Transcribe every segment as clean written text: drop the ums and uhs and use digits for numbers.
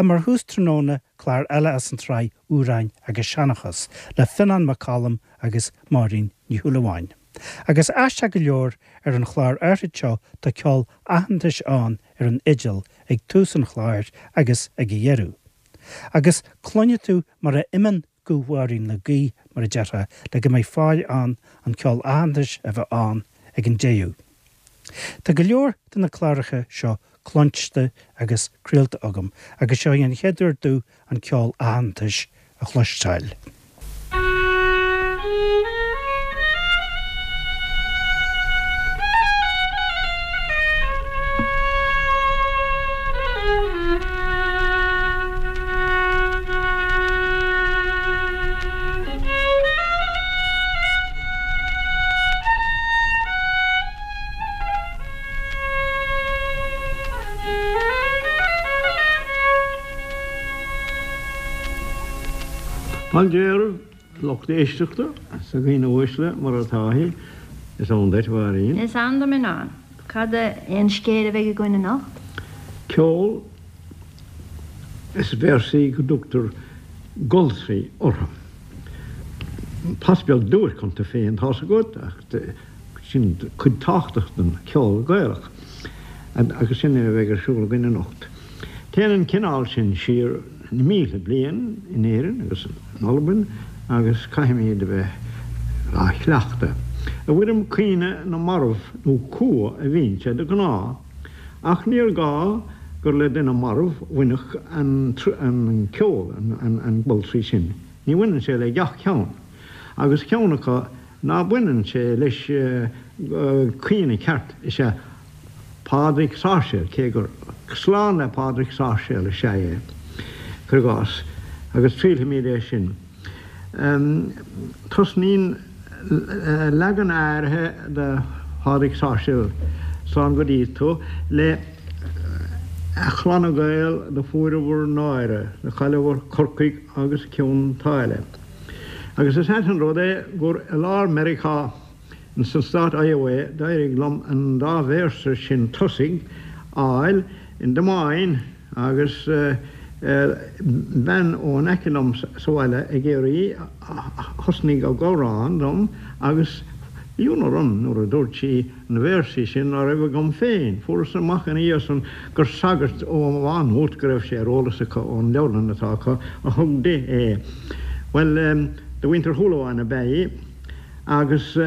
Ach mar thús tráthnóna, clár eile as an tsraith Amhráin agus Seanchas le Fionán Mac Coluim agus Máirín Ní Shúilleabháin. Agus aisteach go leor, ar an chlár áithrid seo tá ceol aitheantais ann ar an fhidil ag tús an chláir agus ag a dheireadh. Agus cluinfidh tú mar a imíonn guth Mháirín le gaoth, mar a déarfá, le go mbeidh fáil ann an ceol aitheantais a bheith ann ag an deireadh. Tá go leor de na cláracha seo cluinste agus craolta agam agus seo í an chéad uair domh an ceol aitheantais a chloisteáil. Fáilte romhaibh, a lucht éisteachta, is a dhaoine uaisle, mar atá sí. Is ann duit, a Mháirín. Is ann dom, a Fhionáin. Cad é an scéal a bheidh againn anocht? Ceol is véarsaí go dtugtar goltraí orthu. Pas beag duairc iontu féin, tá's agat, ach sin cuid tábhachtach den cheol Gaelach agus sin é a bheidh ar siúl againn anocht. Téann an cineál sin siar na mílte bliain in Éirinn agus in Albain agus caithfimid a bheith á chleachtadh. I bhfoirm caoineadh na marbh nó cumha a bhíonn sé de ghnáth, ach níor ghá gur le duine marbh a bhainfeadh an ceol, an goltraí sin. Ní bhaineann sé le gach ceann. Agus ceann acu ná baineann sé leis caoineadh ceart is ea Pádraig Sáirséal, cé gur slán le Pádraig Sáirséal is ea é, cuir i gcás, agus triailfimid é sin. Tosnaíonn leagan áirithe de Phádraig Sáirséal, Slán go dtí tú, le A Chlanna Gael do fuair bhur náire, do chailleadh bhur Corcaigh agus Cionn tSáile. Agus is ait an rud é gur i lár Meiriceá, Ins an stát Iowa d'éirigh liom an dá véarsa sin tosaigh a fháil in Des Moines agus bean ó in aice liom sa bhaile ag iarraidh a thosnaigh ag amhrán dom agus bhí ionadh orm nuair a dúirt sí na véarsaí sin ná raibh agam féin. Fuaireas amach ina dhiaidh san gur sagart ó Mhá Nuat go raibh sé ar eolas acu ón leabharlann atá acu a thug di é. Bhuel, de mhuintir Shúilleabháin ab ea í. Agus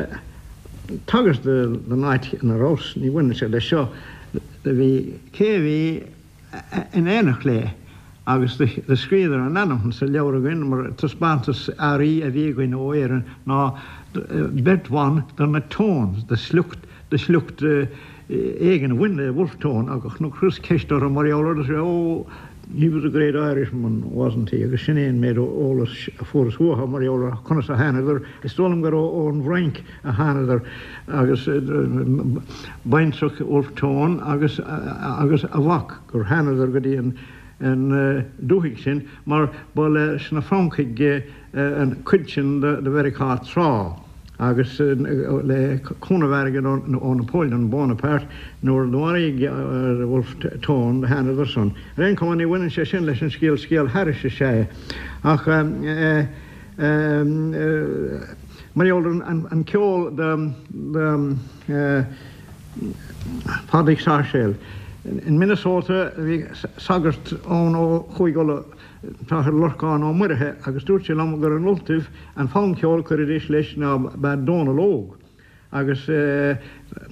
tagairt don áit ina rabhas, ní bhaineann sé leis seo, do bhí cé a bhí in éineacht léi agus do scríobhadar a n-ainm sa leabhar againn mar taispeántas earraí a bhí againn ó Éirinn ná beirt bhan de na Tones, de shliocht, de shliocht éigin a bhain le Wolfe Tone agus nuair a chuireas ceist orthu mar gheall air dúirt oh he was a great Irishman, wasn't he? agus sin é an méid eolais a fuaireas uathu mar gheall ar conas a thánadar, is dóigh liom gur ón bhFrainc a thánadar agus baintreach Wolfe Tone agus agus a mhac gur thánadar go dtí an an dúthaigh sin mar ba leis na Francaigh an chuid sin de Mheiriceá tráth. agus le cúnamh airgid ó Napoleon Bonaparte nuair a maraíodh Wolfe Tone do thánadar san. Ar aon chuma ní bhaineann sé sin leis an scéal, scéal thairis is ea é. Ach mar gheall ar an ceol de Phádraig Sáirséal. In Minnesota bhí sagart ann ó Chúige Uladh, T-Athair Lorcán Ó Muirithe agus dúirt sé liom gur in Ultaibh an fonn ceoil a chuiridís leis ná b'ea Dónal Óg agus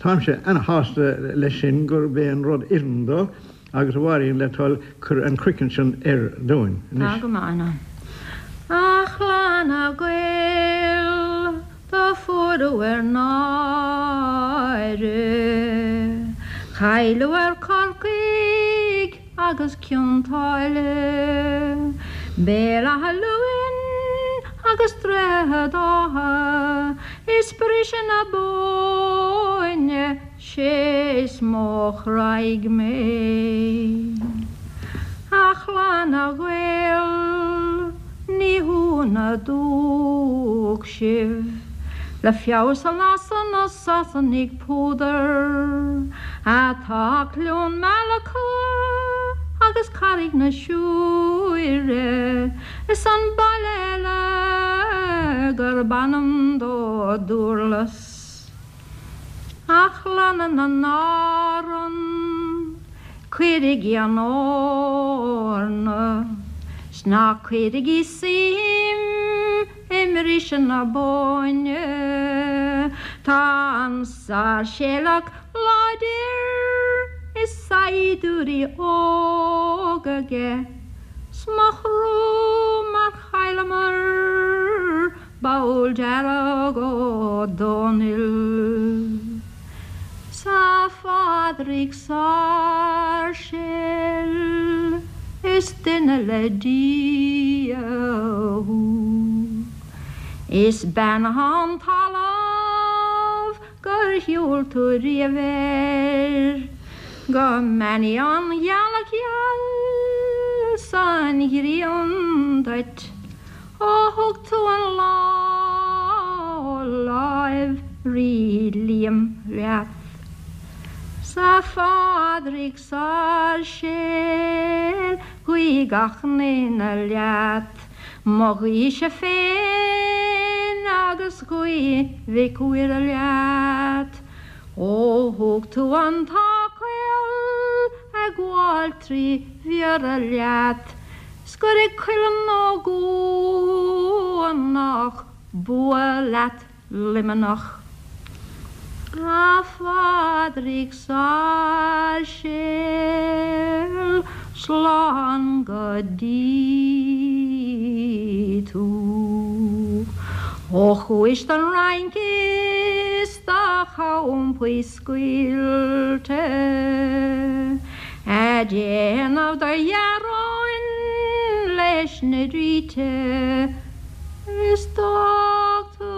táimse ana-shásta leis sin gurb é an rud oireann dó agus a Mháirín le toil cuir an croiceann sin air dúinn Tá anois. go maith ann. A chlanna Gael do fuaireadh bhur náire, Cailleadh bhur Corcaigh agus Cionn tSáile, Béal Átha Luain agus Droichead Átha, is briseadh na Bóinne, 'sé is mó a chráigh mé. A chlanna Ghael, ní hionadh dúch sibh, le feabhas a lasadh na Sasanaigh púdar. Atá Cluain Meala acu agus Carraig na Siúire. Mhuire is an baile eile gurb ainm dó Dúrlas. A chlanna na nÁrann, cuirigí an eorna 's ná cuirigí suim i mbriseadh na Bóinne. Tá an Sáirséalach láidir is saighdiúirí óga aige 's mo thrua mar chailleamar Ball Dearg Ó Dónaill 's a Phádraig Sáirséal is duine le Dia thú. Is beannaithe an talamh gur shiúil tú riamh air, go mbeannaí an ghealach gheal 's an ghrian duit. Ó thug tú an lá ó láimh Rí Liam leat. 'S a Phádraig Sáirséal guí gach n-aoinne leat, mo ghuíse féin agus guí Mhic Mhuire leat. Ó thug tú an t-áth caol ag gabháil tri Bhiorra leat, 's gur ag Cuileann Ó gCuanach bua leat Luimneach. A Phádraig Sáirséal, slán go dtí tú. Ó chuais don Fhrainc is do champaí scaoilte a' déanamh do ghearáin leis na ríthe is d'fhág tú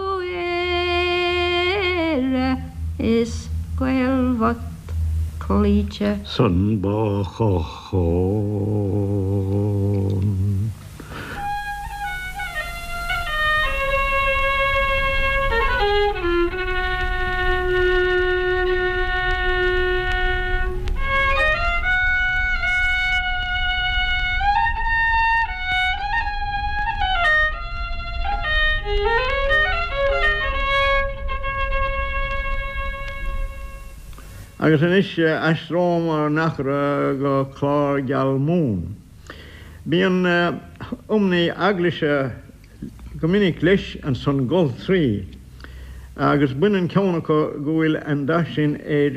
Éire is Gaeil bhocht cloíte. San ba chochán. Agus anois aistreomar ár n-eachra go Clár Geal Mumhan. Bíonn iomnaí eaglaise go minic leis ansan goltraí agus baineann ceann acu go bhfuil an dath sin ar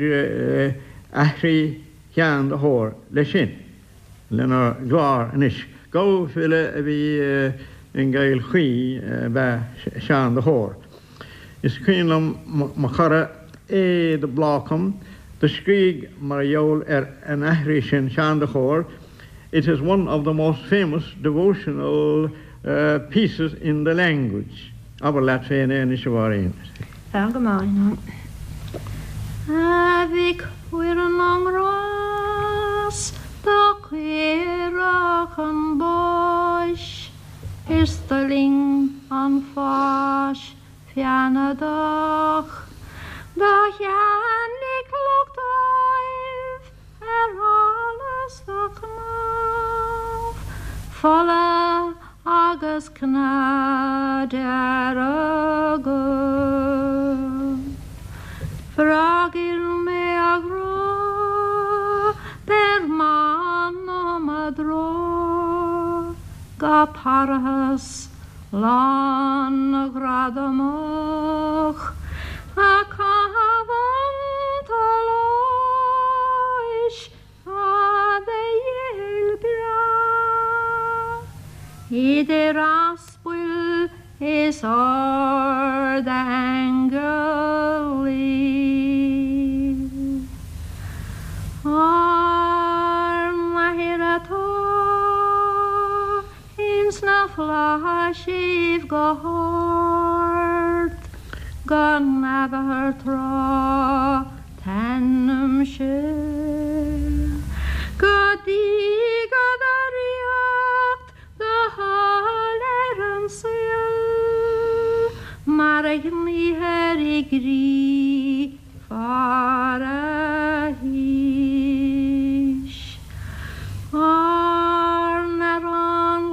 aithrí Sheáin de hÓir leis sin lenár gclár anois. Gabha-fhile a bhí i gCill Chaoi ab ea Seán de hÓr. Is cuimhin liom mo chara A. de Blácam do scrígh mar gheall ar an aithrí sin Seán de hÓr, It is one of the most famous devotional pieces in the language. Abair leat féin é anois, a Mháirín. Tá go maith. A Mhic Mhuire na nGrás do cuireadh chun báis is d'fhuiling an pháis feannadach do cheannaigh lucht Ádhaimh ar allas do chnámh fola agus cneá dearga. Freagair mé a ghrá, beir m'anam i dtráth go parthas lán gradamach a caitheamh an tsolais fada ghéill breá idir aspail is ard-aingilí. Ár nAthair atá Ins na flaithisibh go hard, go n-admhófar tráth t'ainmse, go dtiga do ríocht, do thoil ar an saol, mar a ghníthear i gcrích farathís. Ár n-arán.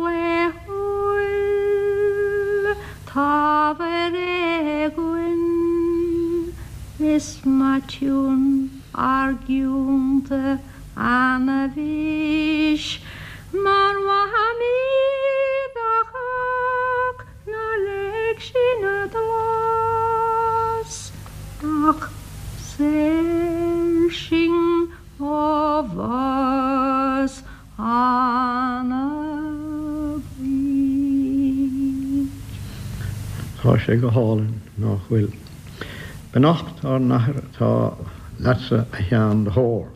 Is maitiún argiúnta ana-bhís mar mhamaí do chách nár leig sin a dlás ach saor sinn ó bhás ana-bhaoth. Tá sé go hálainn, nach bhfuil? Beannacht ár n-athair atá leatsa a Sheáin de hÓr.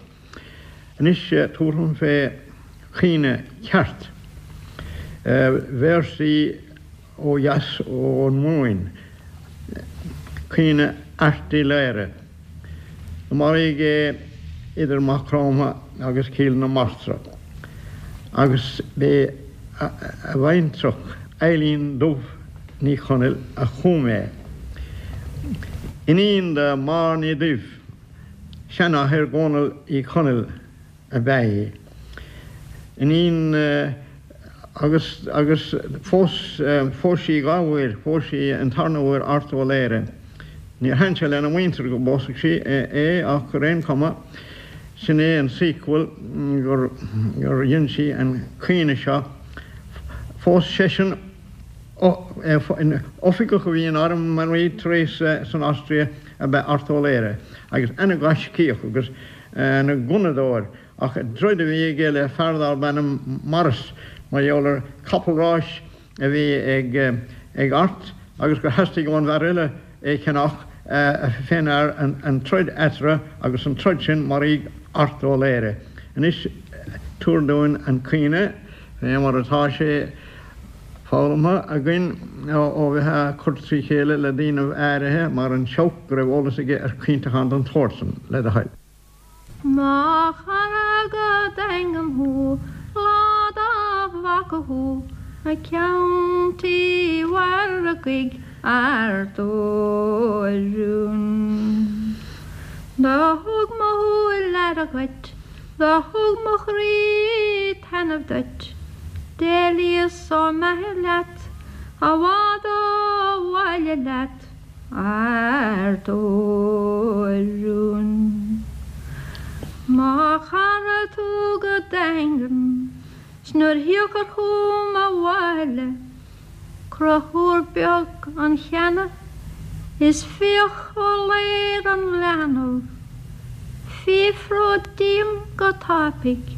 Anois tabharfam fé chaoineadh ceart. Véarsaí ó dheas ón Mumhain. Caoineadh Airt Uí Laoghaire. Maraíodh é idir Maigh Chromtha agus Cill na Martra agus b'é a bhaintreach Eilín Dubh Ní Chonaill a chum é. Iníon de Máire Ní Duibh, seanathair Dhónaill Uí Chonaill, ab ea í. Iníon agus agus phós phós sí dha uair, phós sí an tarna huair Art Ó Laoghaire. Níor thaitin sé lena muintir go bpósfadh sí é ach ar aon chuma sin é an sequel gur gur dhein sí an caoineadh seo. Phós seisean oifigeach a bhí in arm an Rí Theresa san Austria ab ea Art Ó Laoghaire agus ana-ghaiscíoch agus ana ghunnadóir, ach troid a bhí aige le fear darb ainm Morris mar gheall ar capall ráis a bhí ag Art agus gur theastaigh ón bhfear eile é cheannach fén fhear an troid eatarthu agus an troid sin maraíodh Art Ó Laoghaire. Anois tabhair dúinn an caoineadh fé mar atá sé foghlamtha againn ó bheith á cur trí chéile le daoinibh áirithe mar an Seabhac go raibh eolas aige ar chaointeachán den tsórt san, le do thoil. Mo chara go Daingean thú, lá dá bhfaca thú, ag ceann tí mhargaidh Airt Ó Rún. Do thug mo shúil aire dhuit, do thug mo chroí taitneamh duit, D'éalaíos ó m'athair leat, i bhfad ó bhaile leat, Art Ó Rún. Mo chara tú go daingean, 's nuair thiocfair chugam abhaile, Conchúr beag an cheana is fiach ó léir an leanbh, Fiafród díom go tapaidh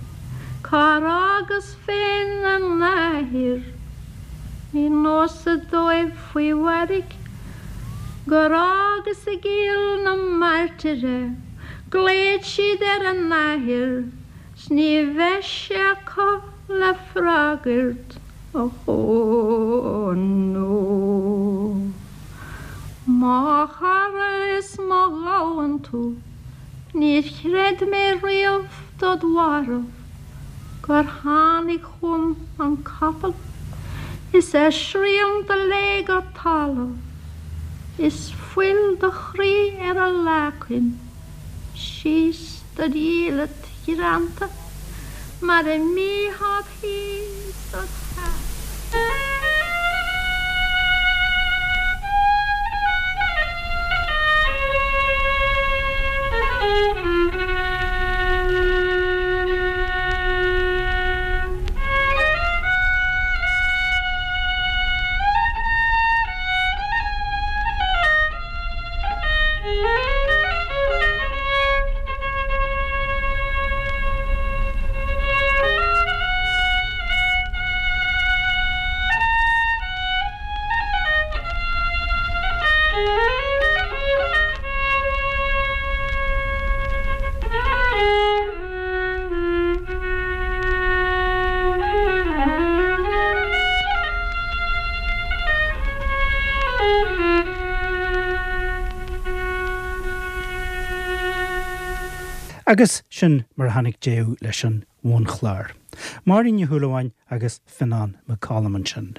cár fhágas féin a n-athair. Ní nósa dóibh faoi mhairg gur fhágas i gCill na Martra é, Glaoid siad ar a n-athair 's ní bheidh sé acu le freagairt, ó nó. Mo chara is mo ghamhain tú, níor chreid mé riamh dod mharbh, gur tháinig chugam an capall is a shrian do léigh go talamh, is fuil do chroí ar a leacain. Síos dod dhiallait ghreanta mar a mbítheá thíos dod theach. Agus sin mar a tháinig deireadh leis an bhunchlár. Máirín Ní Shúilleabháin agus Fionán Mac Coluim ansin.